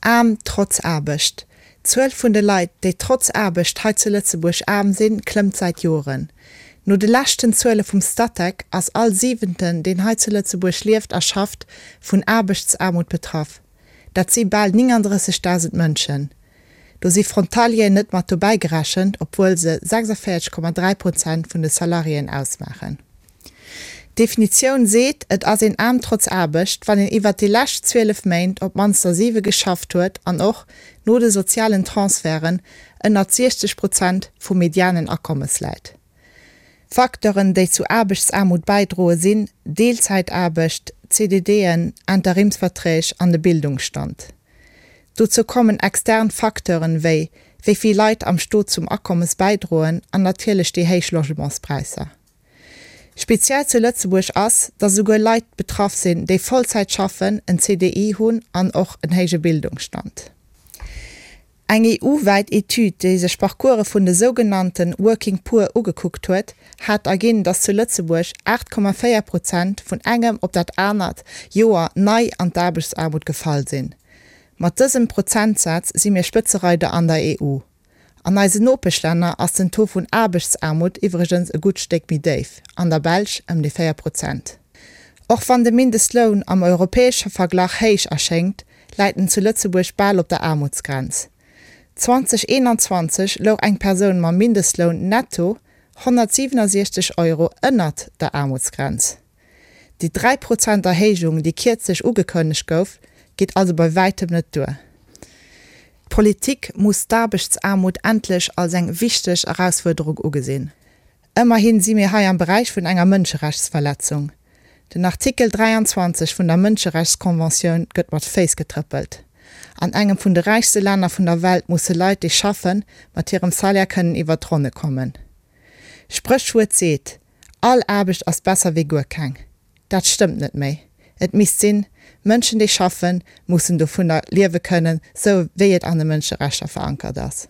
Aarm trotz Aarbecht. D'Zuel vun de Leit, déi trotz Aarbecht hei zu Lëtzebuerg aarm sinn, klëmmt säit Joren. No de leschten Zuele vum Statec ass all Siwenten, deen hei zu Lëtzebuerg lieft a schafft, vun Aarbechtsaarmut betraff. Dat si bal 39.000 Mënschen. Do si Frontalieren net mat dobäi gerechent, obwuel se 46,3 Prozent vun de Salariéen ausmaachen. D'Definitioun seet, et ass een aarm trotz Aarbecht, wann een iwwert déi lescht 12 Méint op d'mannst der 7 geschafft huet an och, no de sozialen Transferten, ënnert 60 Prozent vum medianen Akommes läit. Facteuren, déi zu Aarbechtsaarmut bäidroe sinn, Deelzäitaarbecht, CDDen, Interimsverträg an de Bildungsstand. Dozou kommen extern Facteuren, wéi wéi vill Leit am Stot zum Akommes bäidroen an natierlech déi héich Logementspräisser. Speziell zu Lëtzebuerg ass, datt esouguer Leit betraff sinn, déi Vollzäit schaffen, en CDI hunn an och en héije Bildungsstand. Eng EU-wäit Etüd, déi sech Parcourse vun de sougenannte Working Poor ugekuckt huet, hat erginn, datt zu Lëtzebuerg 8,4 Prozent vun engem op dat anert Joer nei an d'Aarbechtsaarmut gefall sinn. Mat dësem Prozentsaz si mir Spëtzereider an der EU. An eisen Nopeschlänner ass den Taux vun Aarbechtsaarmut iwwregens e gutt Stéck méi déif, an der Belsch ëm déi 4 Prozent. Och wann de Mindestloun am europäesche Verglach héich erschéngt, läit en zu Lëtzebuerg bal op der Aarmutsgrenz. 2021 louch eng Persoun mam Mindestloun netto 167 Euro ënnert der Aarmutsgrenz. Déi 3 Prozent Erhéijung, déi kierzlech ugekënnegt gouf, geet also bei wäitem net duer. D'Politik muss d'Aarbechtsaarmut endlech als eng wichteg Erausfuerderung ugesinn. Ëmmerhin si mir hei am Beräich vun enger Mënscherechtsverletzung. Den Artikel 23 vun der Mënscherechtskonventioun gëtt mat Féiss getrëppelt. An engem vun de räichste Länner vun der Welt musse Leit, déi schaffen, mat hirem Salaire kënnen iwwert d'Ronne kommen. Spréchwuert seet, All Aarbecht ass besser wéi guer keng. Dat stëmmt net méi. Et misst sinn, Mënschen déi schaffen, mussen dovunner liewe kënnen, sou wéi et an de Mënscherechter verankert ass.